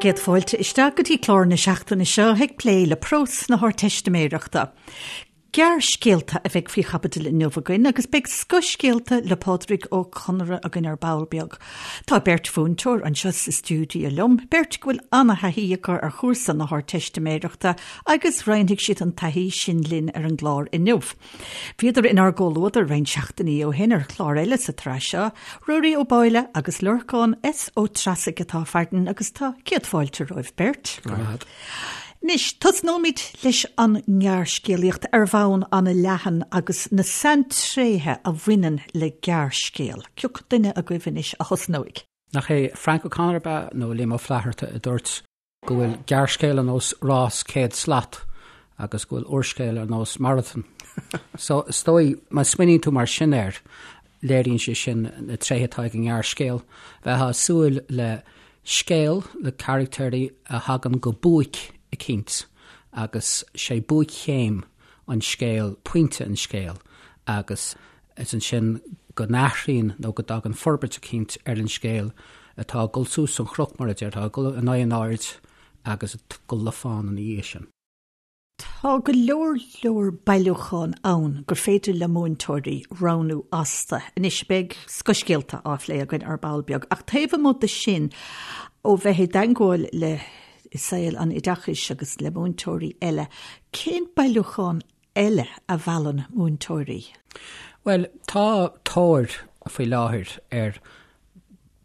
Bhur gcéad fáilte isteach go dtí clár na seachtaine seo ag plé le prós na hArdteistiméireachta. Gearrscéalta a bheidh faoi chaibidil inniu againn agus beidh scothscéalta le Pádraig Ó Conaire againn ar ball beag. Tá beirt mhúinteoir anseo sa stiúideo liom, beirt go bhfuil an-thaithí acu ar chúrsa na hArdteistiméireachta agus roinnfidh siad an taithí sin linn ar an gclár inniu. Bhíodar inár gcomhluadar roinnt seachtainí ó shin ar chlár eile sa tsraith seo, Ruairí Ó Báille agus Lorcán S. Ó Treasaigh atá farainn agus tá céad fáilte romhaibh beirt. Go raibh maith agat. Anois, tosnóimid leis an ngearrscéalaíocht ar bhonn an-leathan agus na saintréithe a bhaineann le gearrscéal. Cé acu duine agaibh anois a thosnóidh? Nach é Frank O'Connor ab ea, nó Liam Ó Flaithearta, a dúirt go bhfuil gearrscéal ar nós rás 100 slat agus go bhfuil úrscéal ar nós marathon. So, is dóigh, má smaoiníonn tú mar sin air, léiríonn sé sin na tréithe atá ag an ngearrscéal. Bheifeá ag súil le Scéal le carachtéirí a thagann go buaic eicínt agus sé buaic-chéim an scéil pointe an scéil agus is ansin go n-athraíonn nó go dtagann forbairt eicínt ar an scéal atá ag dul suas an chnoc mar a déarfá, ag dul in aghaidh an aird agus ag dul le fán ina dhiaidh sin. Tá go leor leor bailiúchán ann gur féidir le múinteoirí roghnú astu. Anois, beidh scothscéalta á phlé againn ar ball beag, ach taobh amuigh de sin, ó bheith i dteagmháil le saol an oideachais agus le múinteoirí eile, cén bailiúchán eile a mheallann múinteoirí? Bhuel, tá tóir faoi láthair ar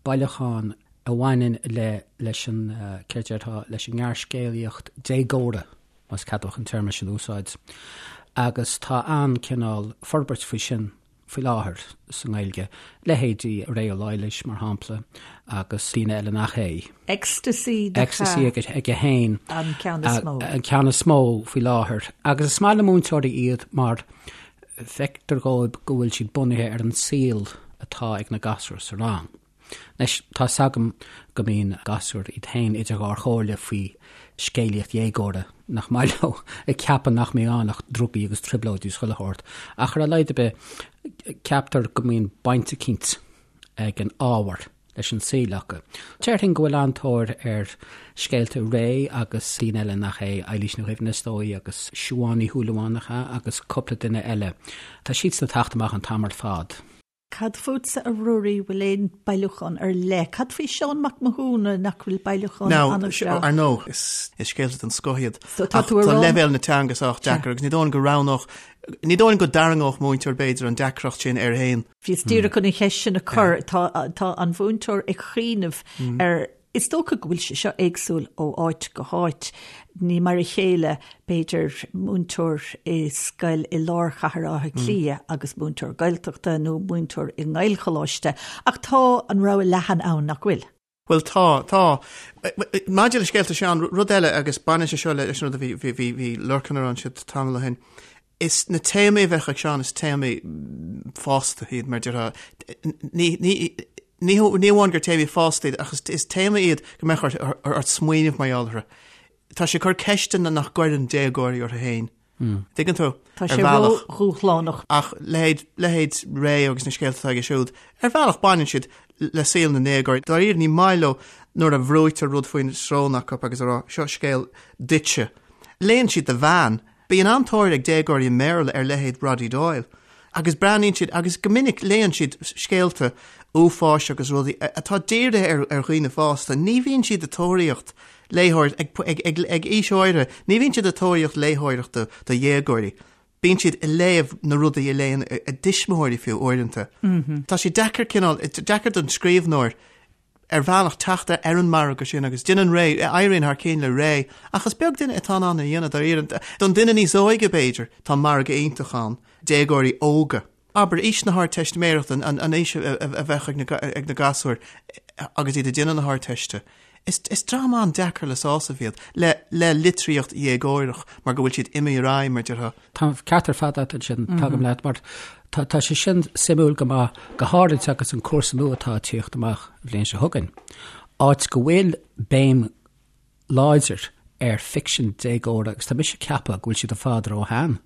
bailiúchán a bhaineann le leis an, céard a déarfá, leis an ngearrscéalaíocht déagóra, más ceadmhach an téarma sin a úsáid, agus tá an-cineál forbairt faoi sin faoi láthair sa nGaeilge, leithéidí Ré Ó Laighléis, mar shampla, agus daoine eile nach é. Ecstasy Ecstasy aige féin. An ceann is mó. An ceann is mó faoi láthair. Agus is maith le múinteoirí iad mar feictear dhóibh go bhfuil siad bunaithe ar an saol atá ag na gasúir sa rang. Anois, tá 'fhios agam go mbíonn gasúir iad féin idir dhá chomhairle faoi scéalaíocht dhéagóra, nach maith leo, ag ceapadh nach mbíonn ann ach drugaí agus trioblóidí is chuile shórt. Ach ar a laghad ar bith, ceaptar go mbíonn baint eicínt ag an ábhar leis an saol acu. Déarfainn go bhfuil an-tóir ar scéalta Ré agus daoine eile nach é, Eilís Ní Dhuibhne is dóigh agus Siobhán Ní Shúilleabháin nach ea agus cúpla duine eile. Tá siadsan ag teacht amach an t-am ar fad. Cad fútsa a Ruairí, bhfuil aon bailiúchán ar leith? Cad faoi Seán Mac Mathúna, nach bhfuil bailiúchán an-bhreá? Ar ndóigh, is scéalta den scoth iad. Ach tá leibhéal na teanga sách deacair agus ní dóigh liom go roghnódh, ní dóigh liom go dtarraingeodh múinteoir b'fhéidir an deacracht sin air féin. Bhíos díreach chun an cheist sin a chur. Tá an mhúinteoir ag cuimhneamh ar, is dócha go bhfuil sé seo éagsúil ó áit go háit. Ní mar a chéile, b'fhéidir, múinteoir i scoil i lár chathair Átha Cliath agus múinteoir Gaeltachta nó múinteoir i nGaelcholáiste, ach tá an rogha leathan ann, nach bhfuil? Bhuel, tá, tá. Maidir le scéalta Seán, rud eile, agus baineann sé seo leis an rud a bhí, bhí, bhí, bhí Lorcan a rá ansin tamall ó shin, is na téamaí a bheadh ag Seán, is téamaí fásta iad, mar déarfá. Ní, ní, ní, ní amháin gur téamaí fásta iad, ach is, is téamaí iad go mbeadh ort, ort smaoineamh mar gheall orthu. Tá sé ag cur ceisteanna nach gcuireann déagóirí orthu féin. Tuigeann tú? Tá sé ró-dhúshlánach. Ach leithéid, leithéid Ré agus na scéalta atá aige siúd, ar bhealach baineann siad le saol na ndéagóirí. Dáiríre, ní maith leo nuair a bhrúitear rud faoin srón acu agus a rá, seo scéal duitse. Léann siad do mheán. Bíonn an-tóir ag déagóirí i mBéarla ar leithéid Roddy Doyle. Agus breathnaíonn siad, agus go minic léann siad scéalta uafáis agus rudaí atá dírithe ar dhaoine fásta. Ní bhíonn siad ag tóraíocht léitheoir, ag, ag, ag, ag aois áirithe, ní bhíonn siad ag tóraíocht léitheoireachta do dhéagóirí. Bíonn siad ag léamh na rudaí a léann a dtuismitheoirí fiú uaireanta. Tá sé deacair cineál, deacair don scríbhneoir ar bhealach teacht ar an margadh sin agus déanann Ré, éiríonn thar cinn le Ré, ach is beag duine atá in ann é a dhéanamh dáiríre. Don duine níos óige b'fhéidir, tá margadh iontach ann, déagóirí óga. Abair, aois na hArdteistiméireachta, an aois a bheadh ag na gasúir agus iad ag déanamh na hArdteiste, is dream an-deacair le sásamh iad le litríocht dhéagóireach mar go bhfuil siad imithe ar aghaidh, mar déarfá. Tá an ceart ar fad agat ansin, tagaim leat, mar tá sé sin suimiúil go maith, go háirid agus an cúrsa nua atá ag tíocht amach an bhliain seo chugainn, áit go bhfuil béim láidir ar ficsean déagóra agus tá mise ag ceapadh go bhfuil siad ar fad róshean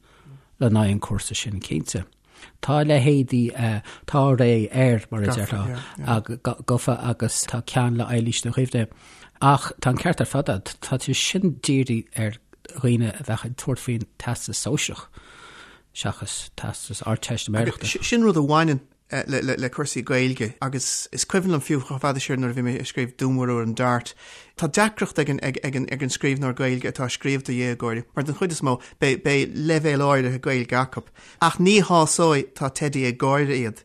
le haghaidh an cúrsa sin, cinnte. Tá leithéidí, tá ré air, mar a déarfá, gofa agus tá ceann le Eilís Ní Dhuibhne. Ach tá an ceart ar fad agat, tá sé sin dírithe ar dhaoine a bheadh ag tabhairt faoin Teastas Sóisearach seachas Teastas Ardteistiméireachta. Sin rud a bhaineann le cúrsaí Gaeilge agus is cuimhin liom fiú chomh fada siar nuair a bhí mé ag scríobh Dúnmharú ar an Dart, tá deacracht ag an scríbhneoir Gaeilge atá ag scríobh do dhéagóirí mar den chuid is mó beidh leibhéal áirithe Gaeilge acu ach ní shásóidh tá Teidí ag gáire iad.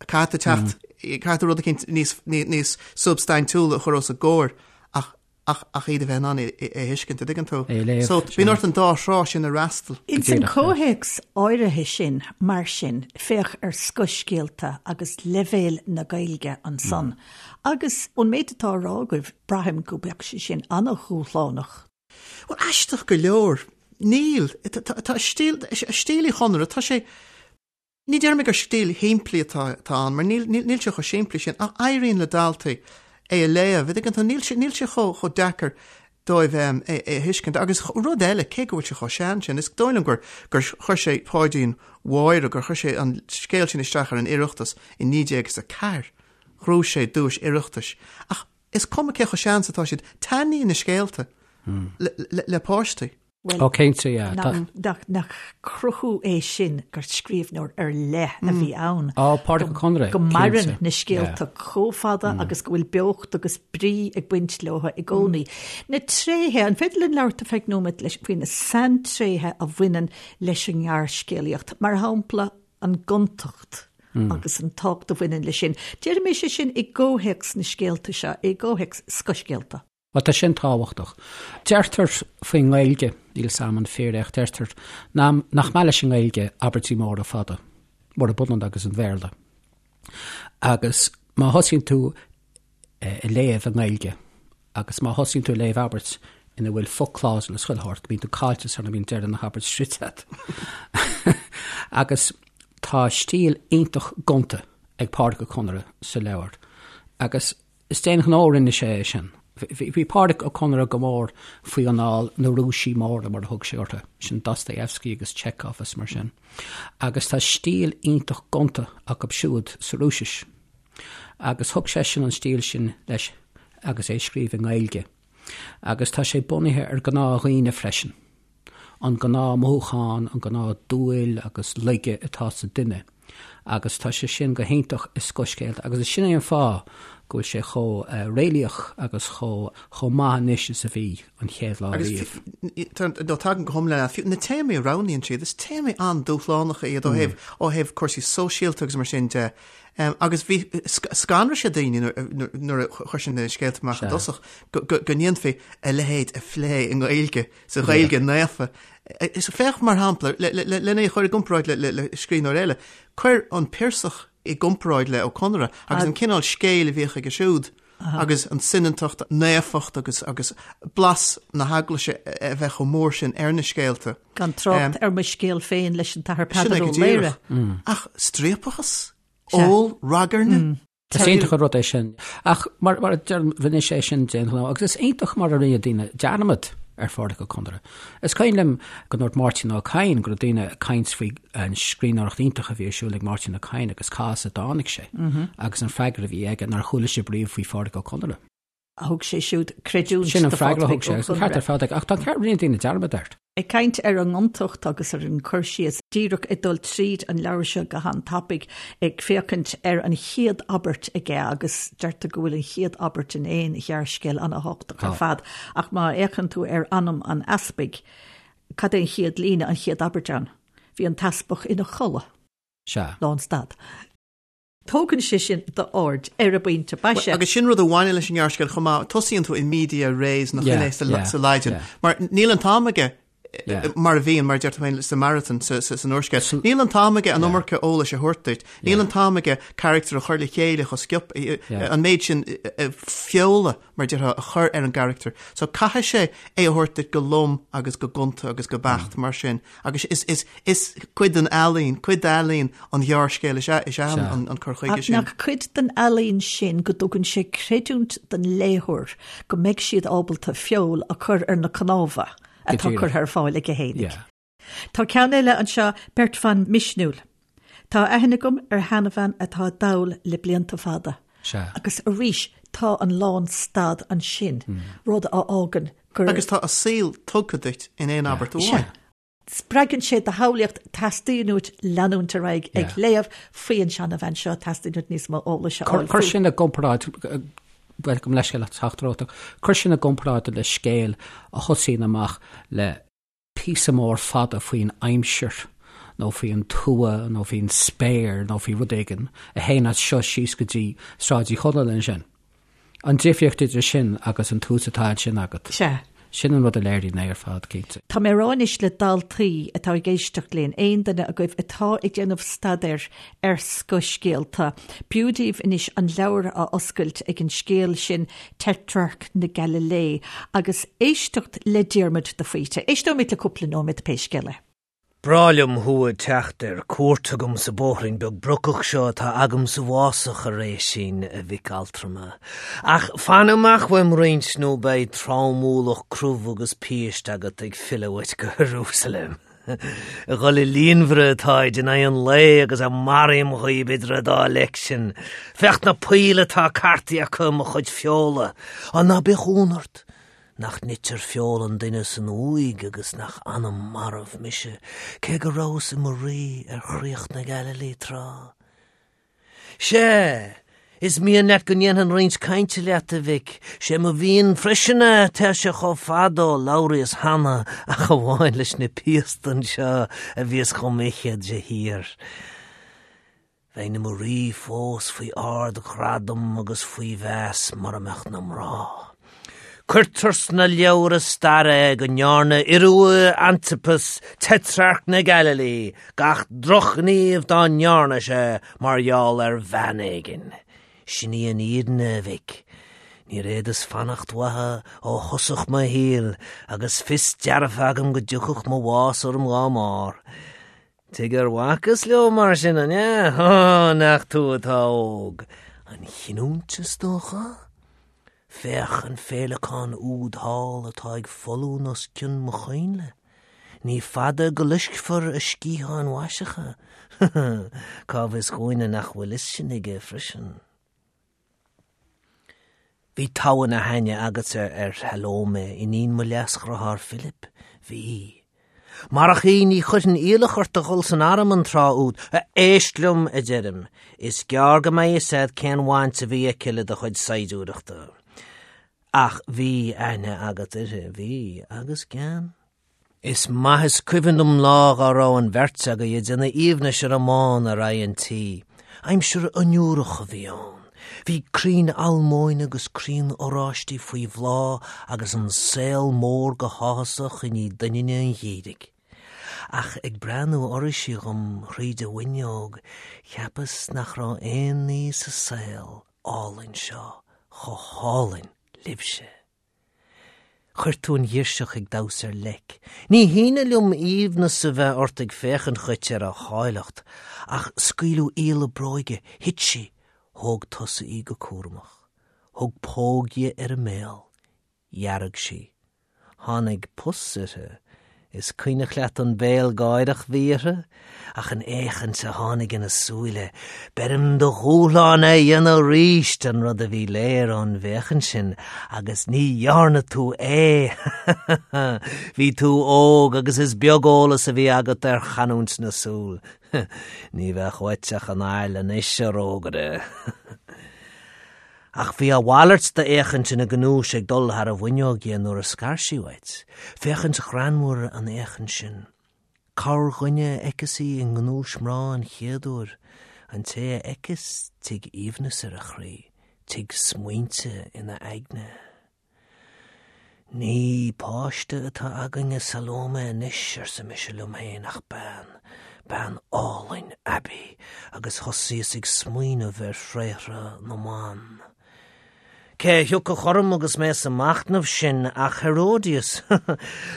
Caithfidh tú teacht, caithfidh tú rud eicínt níos substaintiúla a chur os a gcomhair ach ach ach iad a bheith in ann é a thuiscint, an dtuigeann tú? É a léamh, So, bíonn ort an dá thrá sin a fhreastal. Ins an comhthéacs áirithe sin, mar sin, féach ar scothscéalta agus leibhéal na Gaeilge ansan. Agus ón méid atá á rá agaibh, braithim go mbeadh sé sin an-dhúshlánach. Bhuel, aisteach go leor, níl. Tá stíl, stíl Uí Chonaire, tá sé, Ní déarfaidh mé gur stíl shimplí atá ann, mar níl níl sé chomh simplí sin, ach éiríonn le daltaí é a léamh, an dtuigeann tú, níl sé níl sé chomh chomh deacair dóibh é é a thuiscint. Agus rud eile, cé go bhfuil sé chomh sean sin, is dóigh liom gur gur chuir sé Páidín Mháire, gur chuir sé an scéal sin isteach ar an Oireachtas i 1904, ghnóthaigh sé duais Oireachtais. Ach is cuma cé chomh sean is atá siad, taitníonn na scéalta le le le páistí. Bhuel, Ó, cinnte, yeah. Nach, nach, nach cruthú é sin gur scríbhneoir ar leith a bhí ann. Ó, Pádraic Ó Conaire, Go maireann na scéalta chomh fada agus go bhfuil beocht agus brí ag baint leo i gcónaí. Na tréithe, an féidir linn labhairt ar feadh nóiméad leis faoi na saintréithe a bhaineann leis an ngearrscéalaíocht, mar shampla an gontacht agus an tábhacht a bhaineann leis sin. Déarfaidh mé sé sin i gcomhthéacs na scéalta seo, i gcomhthéacs scothscéalta. Bhuel, tá sin tábhachtach. Deirtear faoin nGaeilge, níl 'fhios a'm an fíor é ach deirtear nach maith leis an nGaeilge abairtí móra fada, murab ionann agus an Bhéarla. Agus má thosaíonn tú ag léamh i nGaeilge agus má thosaíonn tú ag léamh abairt ina bhfuil foclásal is chuile shórt, bíonn tú caillte sara mbíonn deireadh na habairt sroichte agat. Agus tá stíl iontach gonta ag Pádraic Ó Conaire sa leabhar. Agus Is d'aon ghnó a rinne sé é sin. Bhí Pádraic Ó Conaire go mór faoi anáil na Rúisigh móra, mar a thug sé orthu, sin Dostoevsky agus Chekhov is mar sin. Agus tá stíl iontach gonta acu siúd sa Rúisis. Agus thug seisean an stíl sin leis agus é ag scríobh i nGaeilge. Agus tá sé bunaithe ar ghnáthdhaoine freisin. an gnáth-mhothúchán, an gnáth-dúil agus laige atá sa duine agus tá sé sin go hiontach i scothscéalta agus is sin é an fáth go bhfuil sé chomh réalaíoch agus chomh chomh maith anois is a bhí an chéad lá riamh. Agus nó tagaim go hiomlán leat, fiú na téamaí a roghnaíonn siad, is téamaí an-dúshlánacha iad ó thaobh ó thaobh cúrsaí sóisialta agus mar sin de. Agus bhí scanraigh sé daoine nuair a chuir sé na scéalta amach i dtosach go ndéanfaí a leithéid a phlé i nGaeilge. sa Ghaeilge naofa. Féach, mar shampla, lena é a chur i gcomparáid le scríbhneoir eile, cuir an Piarsach i gcomparáid le Ó Conaire agus an cineál scéil a bhíodh aige siúd agus an tsoineantacht, naofacht agus agus blas na heaglaise a bheith chomh mór sin ar na scéalta. Gan trácht ar mo scéal féin leis an tAthair Peadar Ó Laoghaire. Ach striapachas, ól, ragairne. Is iontach an rud é sin. Ach mar a deirim, rinne sé sin d'aon ghnó agus is iontach mar a rinne daoine dearmad ar Phádraic Ó Conaire. Is cuimhin liom go ndúirt Máirtín Ó Cadhain go raibh daoine ag caint faoi an scríbhneoireacht iontach a bhí ar siúl ag Máirtín Ó Cadhain agus cá as a dtáinig sé agus an freagra a bhí aige nár chuala sibh riamh faoi Phádraic Ó Conaire. Thug sé siúd creidiúint Sin an freagra a thug sé, agus an ceart ar fad aige, ach tá an ceart, rinne daoine dearmad air. Ag caint ar an ngontacht agus ar an cur síos, díreach ag dul tríd an leabhar seo go han-tapaidh, ag féachaint ar an chéad abairt aige, agus deirtear go bhfuil an chéad abairt in aon ghearrscéal an-thábhachtach ar fad, ach má fhéachann tú ar Anam an Easpaig, cad é an chéad líne, an chéad abairt ann? Bhí an t-easpag ina chodladh. Sea. Lánstad. Tógann sé sin d'aird ar an bpointe boise. Agus sin rud a bhaineann leis an ngearrscéal chomh maith, tosaíonn tú in media res nach in é sa Laidin, mar níl an t-am aige mar a bhíonn, mar a deir tú féin, sa marathon, san úrscéal. Níl an t-am aige an iomarca eolais a thabhairt duit, níl an t-am aige carachtar a chur le chéile chomh sciobtha, an méid sin feola, mar a déarfá, a chur ar an gcarachtar. So caithfidh sé é a thabhairt duit go lom agus go gonta agus go beacht mar sin. Agus is, is, is cuid den ealaín, cuid d'ealaín an ghearrscéil is ea, is ea an, an cur chuige sin. Ach nach cuid den ealaín sin go dtugann sé creidiúint don léitheoir go mbeidh siad ábalta feoil a chur ar na cnámha atá curtha ar fáil aige fhéinig. Tá ceann eile anseo, Beirt Bhan Misniúil. Tá aithne agam ar sheanbhean atá dall le blianta fada. Sea. Agus arís, tá an lánstad ansin, rud a fhágann gur. Agus tá a saol tugtha duit in aon abairt amháin. Sea. Spreagann sé do shamhlaíocht, teastaíonn uait leanúint ar aghaidh ag léamh faoi an seanabhean seo, teastaíonn uait níos mó eolais a fháil fúithi. Cuir sin i gcomparáid, bhuel, gabh mo leithscéal as teacht romhat, ach cuir sin i gcomparáid le scéal a thosaíonn amach le píosa mór fada faoin aimsir nó faoin tuath nó faoin spéir nó faoi rud éigin a théann as seo síos go dtí Sráid Uí Chonaill ansin. An difríocht idir sin agus an tús atá ansin agat. Sea. Sin an rud a léiríonn é ar fad, cinnte. Tá mé ag rá anois le daltaí atá ag éisteacht linn, aon duine agaibh atá ag déanamh staidéir ar scothscéalta, b'fhiú daoibh anois an leabhar a oscailt ag an scéal sin Tetrarc na Gaililé agus éisteacht le Diarmuid de Faoite. Éisteoimid le cúpla nóiméad pé scéal é. Breá liom thú ag teacht ar cuairt chugam sa bóithrín beag brocach seo atá agam sa bhfásach, a Réaisín, a mhic altrama. Ach fan amach uaim roinnt nó beidh tromualach crobh agus péist agat ag filleadh uait go Iarúsailéim. Ag dhul i líonmhaire atáid in aghaidh an lae agus maraím dhaoib idir an dá leic sin. Féach na poill atá cartaithe acu i mo chuid feola. Á ná bíodh ionadh ort! Nach nitear feoil an duine san uaigh agus nach anam marbh mise, cé go rabhas i mo rí ar chríoch na Gaililí tráth? Sea, is mian leat go ndéanfainn roinnt cainte leat, a mhic. Sé mo mhian freisin é, tá sé chomh fada ó labhraíos cheana ach amháin leis na piasta anseo a bhíos dhom ithe de shíor. Bheinn i mo rí fós faoi ard-ghradam agus faoi mheas mura mbeadh na mná. Cuirtear sna leabhra staire é go ndearna Iorua Antipas, Tetrarc na Gaililí, gach drochghníomh dá ndearna sé mar gheall ar bhean éigin. Sin í an fhírinne, a mhic. Níor fhéadas fanacht uathu ó thosach mo shaoil agus fios dearfa agam go dtiocfadh mo bhás orm dhá mbarr. Tuige ar bhacas leo mar sin, an ea? Ó, nach tú atá óg! An chinniúint, is dócha? Féach an féileacán úd thall atá ag foluain os cionn mo choinnle. Ní fada go loiscfear a sciatháin mhaiseacha. Cá bhfios dhúinne nach bhfuil fhios sin aige freisin? Bhí togha na haithne agatsa ar Shalómé, iníon mo leasdhriotháir Philip. Bhí. Marach í ní chuirfinn iallach ort a dhul san arm an tráth úd. Éist liom, a deirim. Is gearr go mbeidh fhios a'd cén bhaint a bhí aici le do chuid saighdiúireachta. Ach bhí aithne agat uirthi, bhí, agus gean. Is maith is cuimhin liom lá dhá raibh an bheirt agaibh ag déanamh aoibhnis ar an mbán ar aghaidh an tí. Aimsir fhionnuarach a bhí ann. Bhí crainn almóinne agus crainn oráistí faoi bhláth agus an saol mór go háthasach i ndiaidh doininne an gheimhridh. Ach ag breathnú oraibhse dhom thríd an bhfuinneog, cheapas nach raibh aon ní sa saol álainn seo chomh hálainn libhse. Chuir tú an ghirseach ag damhsa ar leic. Ní hionadh liom aoibhneas a bheith ort ag féachaint dhuit ar a háilleacht, ach scaoileadh iallach bróige, thit sí, thóg tusa í go cúramach, thug póg di ar an mbéal, dhearg sí. Tháinig pus uirthi. Is cuimhneach leat an béal gáireach bhí uirthi? Ach an fhéachaint a tháinig ina súile, beirim do dhúshlán é a dhéanamh aríst, an rud a bhí léir ón bhféachaint sin, agus ní dhearna tú é! Bhí tú óg agus is beag eolas a bhí agat ar chanúint na súl. Ní bheadh uait ach an ail anois, a rógaire. Ach bhí a mhalairt d'fhéachaint ina gnúis ag dul thar an bhfuinneog dhi nuair a scar sí uait, féachaint ghreannmhar an fhéachaint sin. Corrdhuine a fheiceas í i ngnúis mná an chéad uair, an té a fheiceas, tig aoibhneas ar a chroí, tig smaointe ina aigne. Ní páiste atá againn i Salómé anois, arsa mise liom féin, ach bean, bean álainn aibí, agus thosaíos ag smaoineamh ar thréithre na mban. Cé a thiocfadh orm agus mé sa machnamh sin ach Herodias.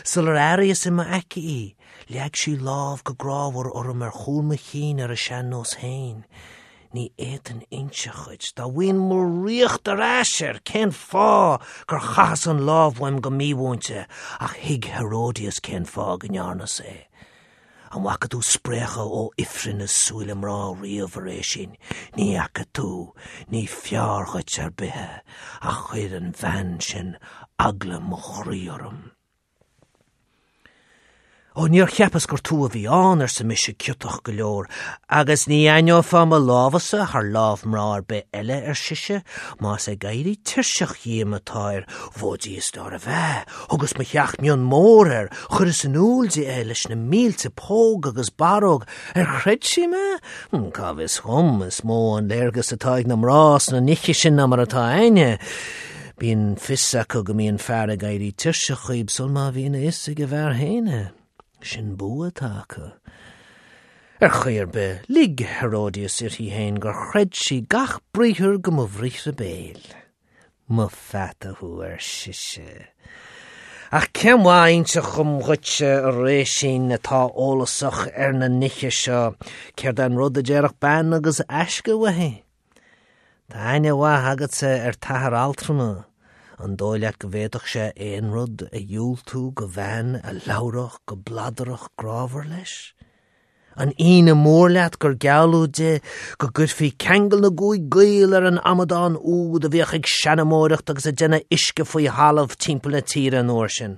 Sular airíos i m'aice í, leag sí lámh go grámhar orm ar chúl mo chinn ar a sean-nós féin. Ní fhéadfainn inseacht dhuit, dá bhfaighinn mo ríocht ar ais air, cén fáth gur chaitheas an lámh uaim go mímhúinte, ach thuig Herodias cén fáth go ndearnas é. An bhfaca tú spréachadh ó ifreann i súile mná riamh, a Réisín? Ní fhaca tú. Ní fearr dhuit ar bith é. Ach chuir an bhean sin eagla mo chroí orm. Ó, níor cheapas gur tú a bhí ann, arsa mise ciotach go leor, agus ní aithneofá mo lámhsa thar lámh mná ar bith eile, ar sise, más ag éirí tuirseach dhíom atáir, bhó Dia is nárbh ea, thugas mo theach mion mór air, chuireas in iúl di é leis na mílte póg agus barróg, ar chreid sí mé? Cá bhfios dhom, is mó an léargas atá ag na mná sna nithe sin ná mar atá a'inne. Bíonn fios acu go mbíonn fear ag éirí tuirseach dhíob sul má bhíonn a fhios ag an bhfear féin é. Sin bua atá acu. Ar chaoi ar bith, lig Herodias uirthi féin gur chreid sí gach briathar go mo bhriathra béil. Mo pheata thú, ar sise. Ach cén mhaith a inseacht dhom dhuitse, a Réisín, atá eolasach ar na nithe seo, céard é an rud a déarfadh bean agus aisce uaithi? Tá aithne mhaith agatsa ar t'athair altrama, an dóigh leat go bhféadfadh sé aon rud a dhiúltú go bhean a labhródh go bladarach grámhar leis? An ionadh mór leat gur gealladh di go gcuirfí ceangal na gcúig gcaol ar an amadán úd a bhíodh ag seanamóireacht agus ag déanamh uisce faoi thalamh timpeall na tíre an uair sin?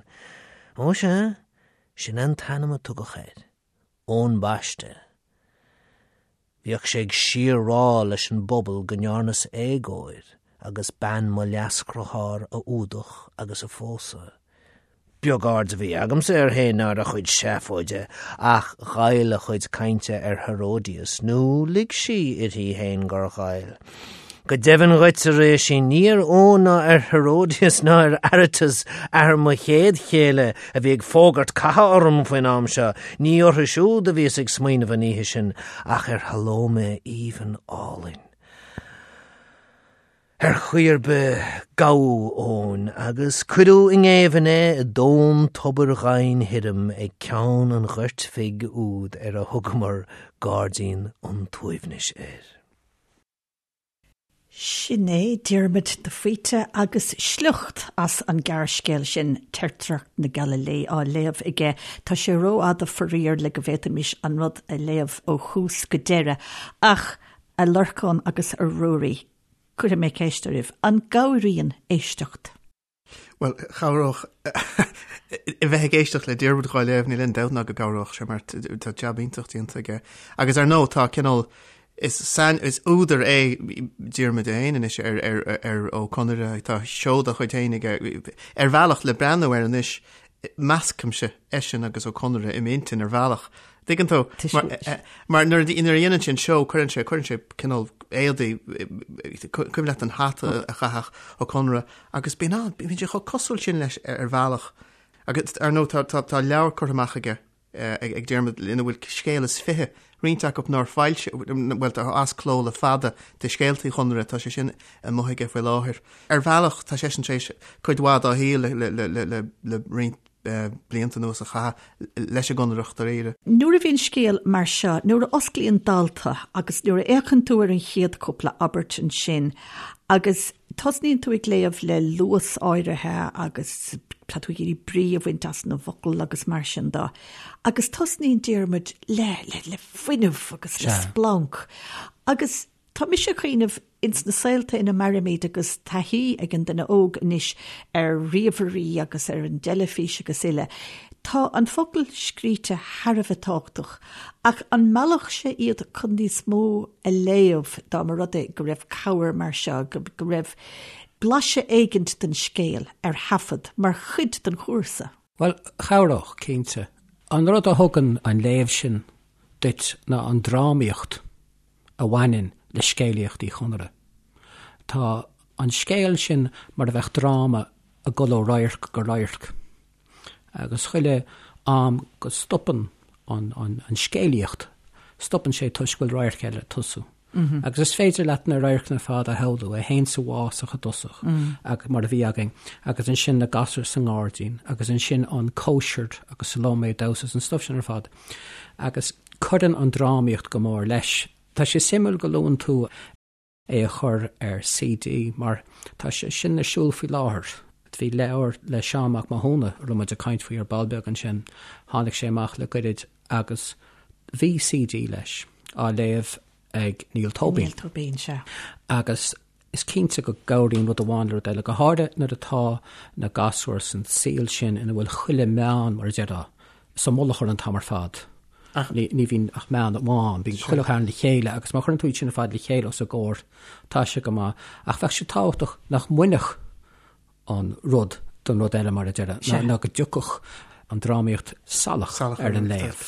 Ó sea, sin é an t-ainm a tugadh air. Eoin Baiste. Bhíodh sé ag síor-rá leis an bpobal go ndearnas éagóir agus bean mo leasdhriotháir a fhuadach agus a phósadh. Beag aird a bhí agamsa air féin ná ar a chuid seafóide, ach ghoill a chuid cainte ar Herodias, nó lig sí uirthi féin gur ghoill. Go deimhin dhuit, a Réisín, ní ar Eoin ná ar Herodias ná ar Aretas, athair mo chéad chéile, a bhí ag fógairt catha orm faoin am seo, ní orthu siúd a bhíos ag smaoineamh an oíche sin, ach ar Shalómé aoibhinn álainn. Ar chaoi ar bith, gabhadh Eoin agus cuireadh i ngéibheann é i dtóin tobair dhoimhin thirim ag ceann an ghoirt bhig úd ar a thugamar Gairdín an tSuaimhnis air. Sin é Diarmuid de Faoite agus sliocht as an gearrscéal sin, Teirtreacht na Gaililé, á léamh aige. Tá sé rófhada faraor le go bhféadfaimis an rud a léamh ó thús go deireadh, ach a Lorcáin agus a Ruairí, cuirfidh mé ceist oraibh, an gcabhraíonn éisteacht? Bhuel, chabhródh a bheith ag éisteacht le Diarmuid dhá léamh, níl aon dabht ná go gcabhródh sé mar tá jab iontach déanta aige. Agus ar ndóigh tá cineál, is sain, is údar é Diarmuid é féin anois ar, ar, ar Ó Conaire, tá seó dá chuid féin aige. Ar bhealach le breathnú air anois, meascaimse eisean agus Ó Conaire i m'intinn ar bhealach. Tuigeann tú? Mar nuair a dhéanann sé an seó, cuireann sé, cuireann sé cineál éadaí, cuimhin leat an hata a chaitheadh Ó Conaire, agus bíonn an, bíonn sé chomh cosúil sin leis ar bhealach. Agus ar ndóigh tá, tá, tá leabhar curtha amach aige, ag Diarmuid ina bhfuil scéal is fiche, roinnt acu nár foilsíodh, bhuel tá as cló le fada de scéalta Uí Chonaire, tá sé sin amuigh aige faoi láthair. Ar bhealach tá seisean tar éis cuid mhaith dá shaol le, le, le, le, le roinnt blianta anuas a chaitheamh leis an gConaireach dáiríre. Nuair a bhíonn scéal mar seo, nuair a osclaíonn dalta agus nuair a fhéachann tú ar an chéad cúpla abairt ansin agus tosnaíonn tú ag léamh le luas áirithe agus tá tú ag iarraidh brí a bhaint as na bhfocal agus mar sin de agus tosnaíonn Diarmuid le, le, le fuinneamh agus le splanc agus Tá mise ag cuimhneamh ins na saolta ina mairimid agus taithí ag an duine óg anois ar ríomhairí agus ar an dteilifís agus uile, tá an focal scríte thar a bheith tábhachtach ach an meallfadh sé iad chun níos mó a léamh dá mba rud é go raibh cabhair mar seo, go raibh blaiseadh éigint den scéal ar thaifead mar chuid den chúrsa? Bhuel, chabhródh, cinnte. An rud a thugann an léamh sin duit ná an drámaíocht. a bhaineann le scéalaíocht Uí Chonaire. Tá an scéal sin mar a bheadh dráma ag dul ó radharc go radharc, agus chuile am go stopann an scéalaíocht, stopann sé toisc go bhfuil radharc eile ag tosú. Agus is féidir leat na radharcanna ar fad a shamhlú, é féin sa bhfásach i dtosach, mar a bhí againn, agus ansin na gasúir sa ngairdín, agus ansin an cóisir agus Salómé ag damhsa agus an stuif sin ar fad. Agus cuireann an drámaíocht go mór leis. Tá sé suimiúil go luann tú é a chur ar CD mar tá sé sin ar siúl faoi láthair. Bhí leabhar le Seán Mac Mathúna, a raibh muid ag caint faoi ar ball beag ansin, tháinig sé amach le goirid agus bhí CD leis á léamh ag Niall Tóibín. Niall Tóibín, sea. Agus is cinnte go gcabhraíonn rud amháin le rud eile, go háirithe nuair atá na gasúir san saol sin ina bhfuil chuile meán, mar a déarfá, sa mullach orthu an t-am ar fad. Ní bhíonn ach meán amháin, bíonn chuile cheann le chéile agus má chuireann tú iad sin ar fad le chéile os a gcomhair, tá sé go maith. Ach bheadh sé tábhachtach nach mbainfeadh an rud don rud eile, mar a déarfá, ná go dtiocfadh an drámaíocht salach ar an léamh.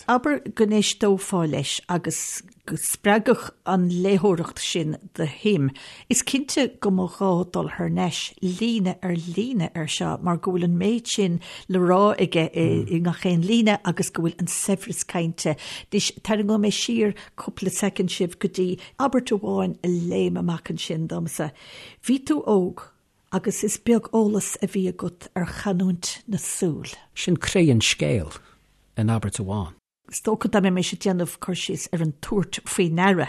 Abair go n-éisteofá leis agus go spreagfadh an léitheoireacht sin do shuim. Is cinnte go mba ghá dul thar n-ais líne ar líne air seo mar go bhfuil an méid sin le rá aige i ngach aon líne agus go bhfuil an saibhreas cainte. Anois, tarraingeoidh mé siar cúpla soicind sibh go dtí abairt amháin a léim amach ansin domsa. Bhí tú óg agus is beag eolas a bhí agat ar chanúint na súl. Sin croí an scéil in abairt amháin. Is dócha dá mbeidh mise ag déanamh cur síos ar an tabhairt faoi ndeara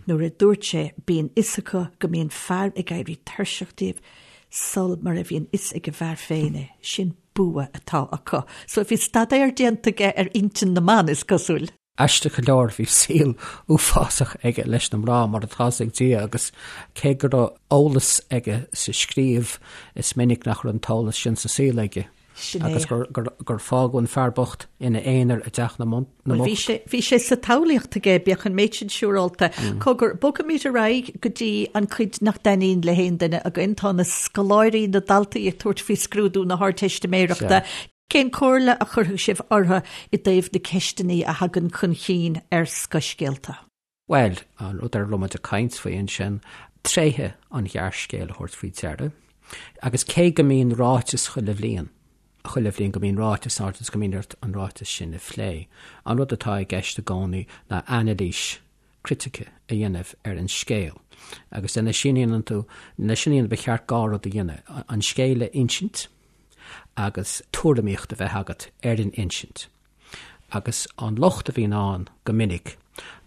nuair a dúirt sé bíonn fhios acu go mbíonn fear ag éirí tuirseach díobh sul mar a bhíonn fhios ag an bhfear féin é, sin bua atá acu. So bhí staidéar déanta aige ar intinn na mban, is cosúil. Aisteach go leor bhí saol uafásach aige leis na mná mar atá 'fhios ag Dia agus cé go raibh eolas aige sa scríobh is minic nach raibh an t-eolas sin sa saol aige. Sin é. Agus gur fágadh an fear bocht ina aonar i dteach na mbocht. Bhuel, bhí sé sa tsamhlaíocht aige, bíodh an méid sin siúrálta. Cogar, bogfaimid ar aghaidh go dtí an chuid nach dtaitníonn le haon duine againn. Tá na scoláirí, na daltaí ag tabhairt faoi scrúdú na hArdteistiméireachta. Cén comhairle a chuirfeadh sibh orthu i dtaobh na ceisteanna a thagann chun chinn ar scothscéalta? Bhuel, an rud ar a raibh muid ag caint faoi ansin, tréithe an ghearrscéil a thabhairt faoi deara. Agus cé go mbíonn ráiteas chuile bhliain, chuile bhliain go mbíonn ráiteas ann agus go mbíonn ort an ráiteas sin a phlé, an rud atá i gceist i gcónaí ná anailís critice a dhéanamh ar an scéal. Agus lena sin a dhéanann tú, lena sin a dhéanamh ba cheart dhá rud a dhéanamh, an scéal a insint agus tuairimíocht a bheith agat ar an insint. Agus an locht a bhíonn ann go minic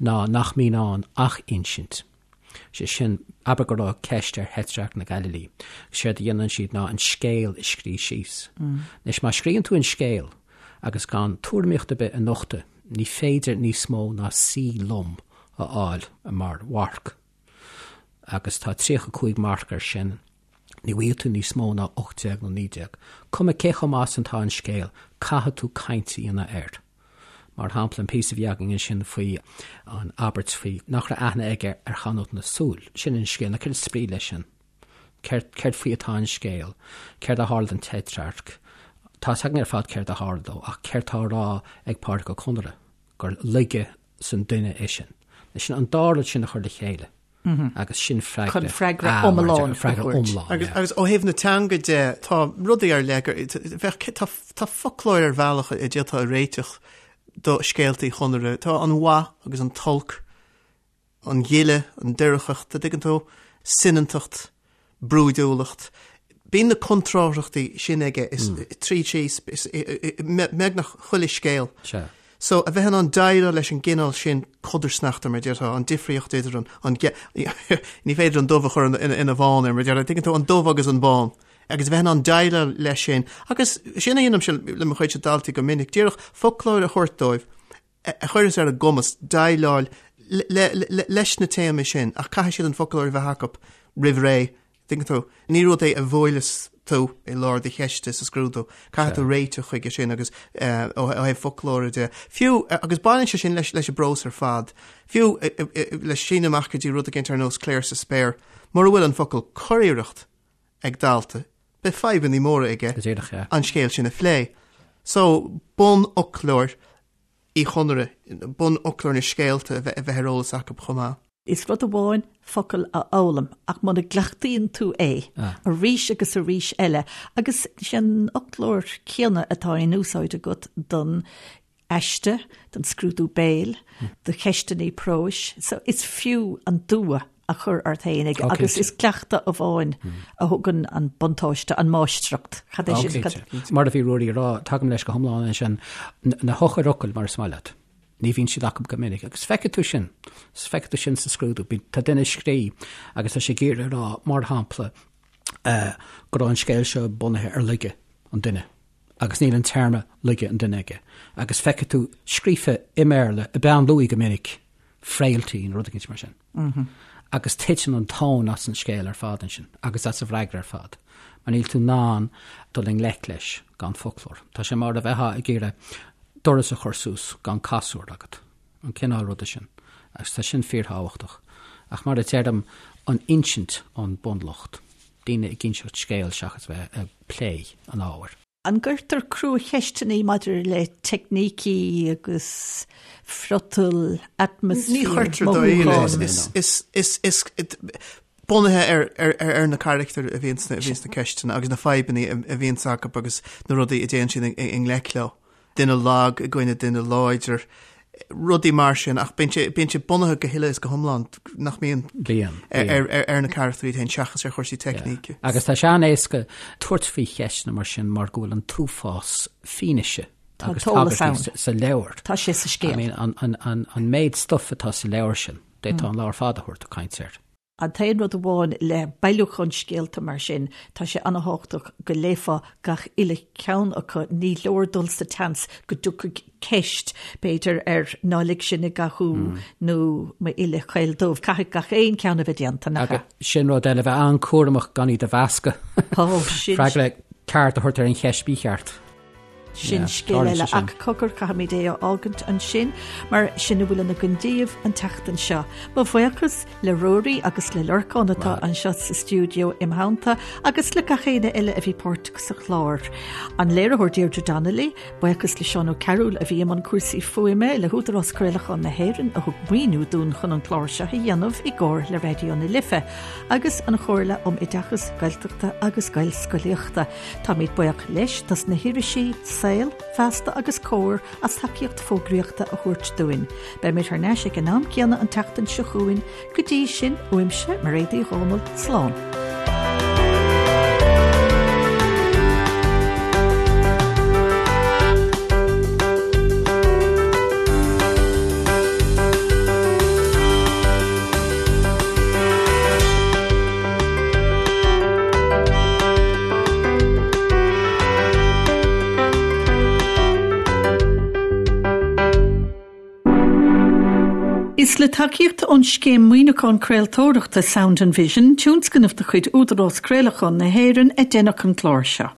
ná nach mbíonn ann ach insint. Sé sin, abair go raibh ceist ar Thetrarc na Gaililí. Séard a dhéanann siad ná an scéal a scrí síos. Anois, má scríonn tú an scéal agus gan tuairimíocht ar bith a nochtadh, ní féidir níos mó ná C lom a fháil mar mharc. Agus tá 35 marc air sin. Ní bhfaighidh tú níos mó ná 18 nó 19. Cuma cé chomh maith is atá an scéal, caithfidh tú caint a dhéanamh air. Mar shampla, an píosa a bhí againn ansin faoi an abairt faoi nach raibh aithne aige ar chanúint na súl. Sin an scéal. Now céard is brí leis sin? Céard, céard faoi atá an scéal? Céard a tharla don Tetrarch? Tá a fhios againn ar fad céard a tharla dó, ach céard tá á rá ag Pádraic Ó Conaire? Gur laige san duine é sin. Sin an dá rud sin a chur le chéile. Agus sin freagra. Chun freagra iomlán a thabhairt. Agus agus ó thaobh na teanga de, tá rudaí ar leith gur, bheadh, tá, tá foclóir ar bhealach a d'fhéadfá a réiteach do scéalta Uí Chonaire. Tá an mhaith agus an t-olc, an ghile, an doircheacht, a dtuigeann tú, soineantacht, brúidiúlacht. Bíonn na contrárthachtaí sin aige is tríd síos beagnach chuile scéal. Sea. So, a bheith in ann déileáil leis an gcineál sin codarsnachta, mar a déarfá, an difríocht idir an, an, ní féidir an dubh a chur ina bhán ar, mar a déarfá, tuigeann tú, an dubh agus an bán. Agus a bheith in ann déileáil leis sin. Agus sin a dhéanaimse le mo chuidse daltaí go minic, díreach foclóir a thabhairt dóibh, a chuireas ar a gcumas déileáil leis na téamaí sin ach caithfidh siad an foclóir a bheith acu roimh ré, tuigeann tú. Ní rud é a bhuaileas tú i lár do cheiste sa scrúdú. Caithfidh tú réiteach chuige sin agus ó thaobh foclóra de. Fiú, agus baineann sé sin leis an bprós ar fad, fiú le síneadh amach go dtí rud éicint ar nós Clare sa Spéir, mura bhfuil an focal curiarracht ag dalta, beidh fadhbannaí móra aige an scéal sin a phlé. So, bunfhoclóir Uí Chonaire, bunfhoclóir na scéalta a bheith ar eolas acu chomh maith. Is rud amháin focal a fhoghlaim ach muna gcleachtaíonn tú é arís agus arís eile, agus sé an fhoclóir céanna atá in úsáid agat don aiste, don scrúdú béil, do cheisteanna próis, so is fiú an dua a chur ort féin agus is cleachtadh amháin a thugann an buntáiste, an máistreacht. Cad é sin? Cinnte. Mar a bhí Ruairí ag rá, tagaim leis go hiomlán ansin, na heochairfhocail mar is maith leat. Ní bhíonn siad acu go minic agus feicfidh tú sin, feicfidh tú sin sa scrúdú. Tá duine ag scríobh agus tá sé ag iarraidh a rá, mar shampla, go raibh an scéal seo bunaithe ar laige an duine agus níl an téarma laige an duine aige agus feicfidh tú scríofa i mBéarla i bpeann luaidhe go minic frailty nó rud éicint mar sin. Agus titeann an tóin as an scéal ar fad ansin agus as an bhfreagra ar fad mar níl tú in ann dul i ngleic leis gan foclóir. Tá sé mar a bheifeá ag iarraidh doras a chur suas gan casúr agat, an cineál ruda sin. Agus tá sin fíorthábhachtach. Ach mar a deirim, an insint an bunlocht. Daoine ag inseacht scéil seachas bheith ag plé an ábhair. An gcuirtear cruacheisteanna maidir le teicnící agus friotal, atmaisféar, Ní chuirtear mothúcháin? Is bunaithe ar na carachtair a bhíonn sna ceisteanna agus na fadhbanna a bhíonns acu agus na rudaí a dtéann siad i ngleic leo. duine lag i gcoinne duine láidir, rudaí mar sin, ach bíonn sé, bíonn sé bunaithe go huile is go hiomlán, nach mbíonn? Bíonn, bíonn. Ar, ar, ar na carachtair iad féin seachas ar chúrsaí teicníce. Agus tá sé an-éasca tabhairt faoi cheisteanna mar sin mar go bhfuil an t-uafás fianaise Tá agus t-eolas tagairtí ann. sa, sa leabhar. Tá sé sa scéal. I mean, an, an, an, an méid stuif atá sa leabhar sin, d'fhéadfá an lá ar fad a thabhairt ag caint air. An t-aon rud amháin le bailiúchán scéalta mar sin, tá sé an-thábhachtach go léifeá gach uile cheann acu, ní leor dul sa tseans go dtiocfaidh ceist, b'fhéidir, ar 'Ná lig sinn i gcathú' nó 'M'uille chaol dubh'. Caithfidh gach aon cheann a bheith déanta, nach ea? Agus sin rud eile, bheith an-chúramach gan iad a mheascadh. Ó, sin. Freagra ceart a thabhairt ar an cheist mhícheart. Sin scéal eile ach cogar caithfimid é a fhágaint ansin mar sin a bhfuil againn daoibh an tseachtain seo. Mo bhuíochas le Ruairí agus le Lorcán atá anseo sa stiúideo im theannta agus le gach éinne eile a bhí páirteach sa chlár. An léiritheoir Deirdre Donnelly, buíochas le Seán Ó Cearúil a bhí i mbun cúrsaí fuaime, le hÚdarás Craolacháin na hÉireann a thug maoiniú dúinn chun an clár seo a dhéanamh i gcomhar le Raidió na Life agus an Chomhairle um Oideachas Gaeltachta agus Gaelscolaíochta. Táimid buíoch leis dos na hirisí Saol, Feasta agus Comhar as tacaíocht fógraíochta a thabhairt dúinn. Beimid thar n-ais ag an am céanna an tseachtain seo chugainn. Go dtí sin, uaimse, Mairéad Uí Dhomhnaill, slán. Is le tacaíocht ón Scéim Maoiniúcháin Craoltóireachta Sound and Vision, tionscnamh de chuid Údarás Craolacháin na hÉireann, a deineadh an clár seo.